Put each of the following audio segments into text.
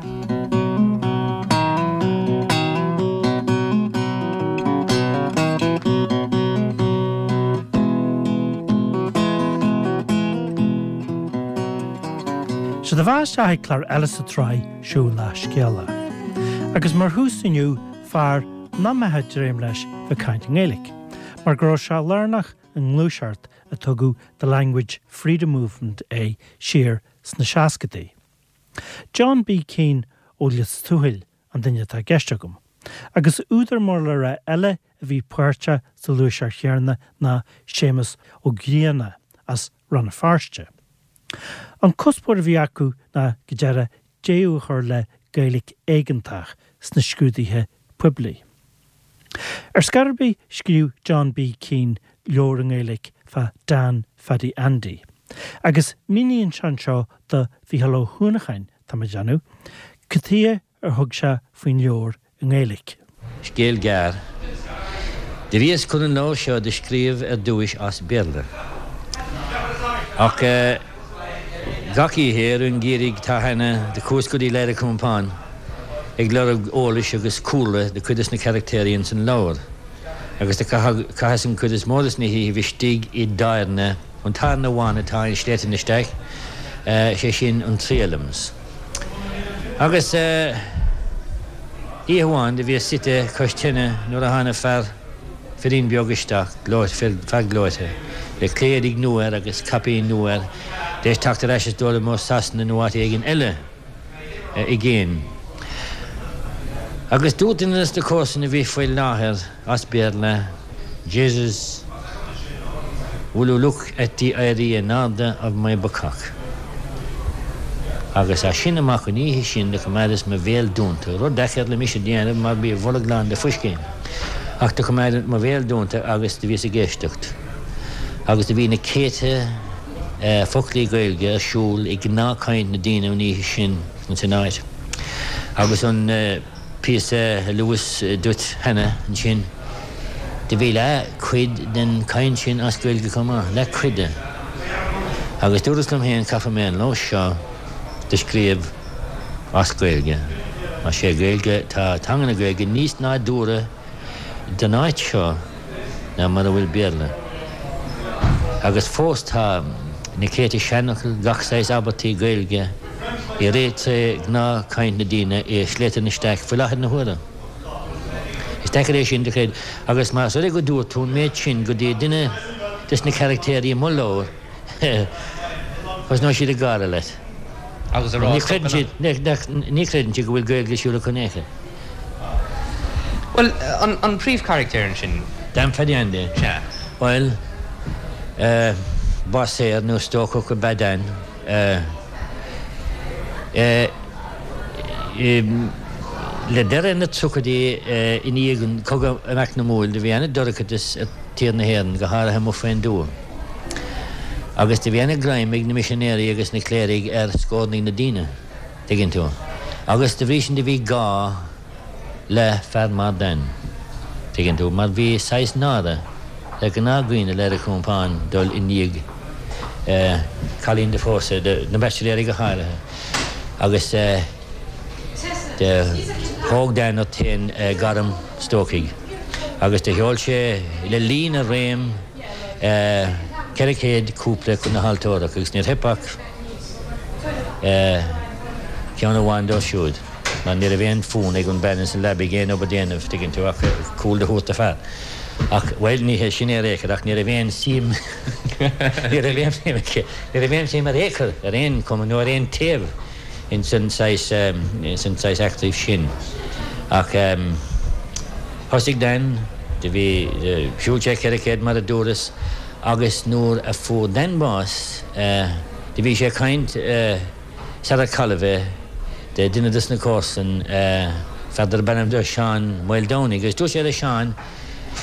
Sea, tá fáilte isteach ag clár eile sa tsraith seo Lá Scéala. Agus mar thús inniu, fear nach mbeifeá ag dréim leis bheith ag caint i nGaeilge, mar go raibh sé lárnach i ngluaiseacht a tugadh The Language Freedom Movement air siar sna seascadaí. John B. Keane ó Lios Tuathail an duine atá i gceist agam. Agus údar mór le rá eile a bhí páirteach sa ghluaiseacht chéanna ná Séamus Ó Grianna as Rann na Feirste. An cuspóir a bhí acu ná go deireadh deireadh a chur le Gaeilge éigeantach sna scrúduithe poiblí. Ar scor ar bith scríobh John B. Keane leabhar i nGaeilge fá Dan Phaddy Andy. Agus míníonn sé anseo do Mhícheál Ó hUanacháin, tá mé ag déanamh, cad chuige ar thug sé faoin leabhar i nGaeilge. Scéal gearr. Do bhíos chun an leabhar seo do scríobh ar dtúis as Béarla. Ach gach oíche i rith an gheimhridh tá cheana do chuas go dtí Leitir Compáin ag lorg eolais agus cúlra do chuid des na carachtéirí ins an leabhar agus do chaitheas an chuid is mó des na hoíchibh istigh i dtábhairne, an tábhairne amháin atá i Sléibhte na Staic, sé sin an Three Elms. Agus oíche amháin do bhíos suite cois tine nuair a thána fear, firín beag isteach, gleoite, fear gleoite, le clé-éadaigh nua air agus caipín nua air, d'éis teacht ar ais is dóigh liom ó Sasana nó áit éigin eile i gcéin. Agus dúirt duine des na comharsain a bhí faoi láthair as Béarla, Jesus, will you look at the éirí in airde of my bacach? Agus as sin amach an oíche sin do choimeádas mo bhéal dúnta, rud deacair le mise déanamh mar bhí a bholg lán de phuiscín, ach do choimeádas mo bhéal dúnta agus do bhíos ag éisteacht. Agus do bhí na céadta foclaí Gaeilge ar siúl i ngnáthchaint na daoine an oíche sin ins an áit. Agus an. píosa a luas duit cheana ansin, do bhí leath cuid den chaint sin as Gaeilge chomh maith, leath cuid de. Agus dúras liom féin, caithfidh mé an leabhar seo do scríobh as Gaeilge, mar sé Gaeilge, tá teanga na Gaeilge níos nádúrtha don áit seo ná mar a bhfuil Béarla. Agus fós tá na céadta seanfhocal, gach saghas abairtí Gaeilge i rith tré ghnáth-chaint na daoine i Sléibhte na Staic faoi láthair na huaire. Is deacair é sin do chreid agus más rud é go dúirt tú an méid sin go dtí duine des na caractéirí i mo leabhar, Thosnóidh siad ag gáire leat. Agus a rá Ní chreideann siad, ní chreideann siad go bhfuil Gaeilge ar siúl acu in aon chor. Bhuel, an príomhcharactéir ansin? Dan Phaddy Andy. Sea. Bhuel, básaer nó stócach ab ea Dan. Le deireadh na tríochaidí i ndiaidh an chogadh eacnamúil do bhí ana-dorchadas ar tír na hÉireann, go háirithe amuigh faoin dtuath. Agus do bhí ana-ghreim ag na misinéirí agus na cléirigh ar scórnaigh na daoine, tuigeann tú. Agus da bhrí sin do bhí gá le fear mar Dan, tuigeann tú, mar bhí saghas náire ar ghnáthdhaoine Leitir Compáin dul i ndiaidh cailín do phósadh, na baitsiléirí go háirithe. Agus do thóg Dan ort féin gairm stócaigh agus do sheol sé le linn a réim 400 cúpla chun na haltórach agus níor theip ach ceann amháin dóibh siúd mar ní raibh aon fhonn ag an bean ins an leabaidh aon obair déanamh, tuigeann tú, ach cúl do thabhairt do fear. Ach, bhuel, ní hé sin é ar aon chor ach ní raibh aon suim, ní raibh aon suim aici, ní raibh aon suim ar aon chor, ar aon chuma nó ar aon taobh ins an saghas, ins an saghas eachtraí sin. Ach thosaigh Dan, do bhí, shiúil sé 400 mar a dúras agus nuair a fuair Dan bás, do bhí sé ag caint sar ar cailleadh é de duine dos na comharsain, fear darb ainm dó Seán Maoldomhnaigh agus dúirt sé le Seán,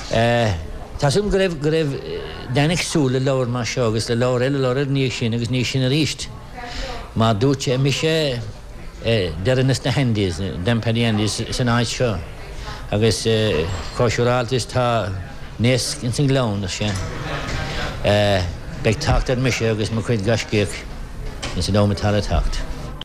Tá súil agam go raibh, go raibh Dan ag súil le leabhar mar seo agus le leabhar eile, leabhar eile ina dhiaidh sin agus ina dhiaidh sin aríst. Mar dúirt sé, mise deireanas na hAndys, Dan Paddy Andys san áit seo agus chomh siúráilte is tá naosc ins an ngleann, ar sé, beidh teacht ar mise agus mo chuid gaiscíoch ins an am atá le teacht.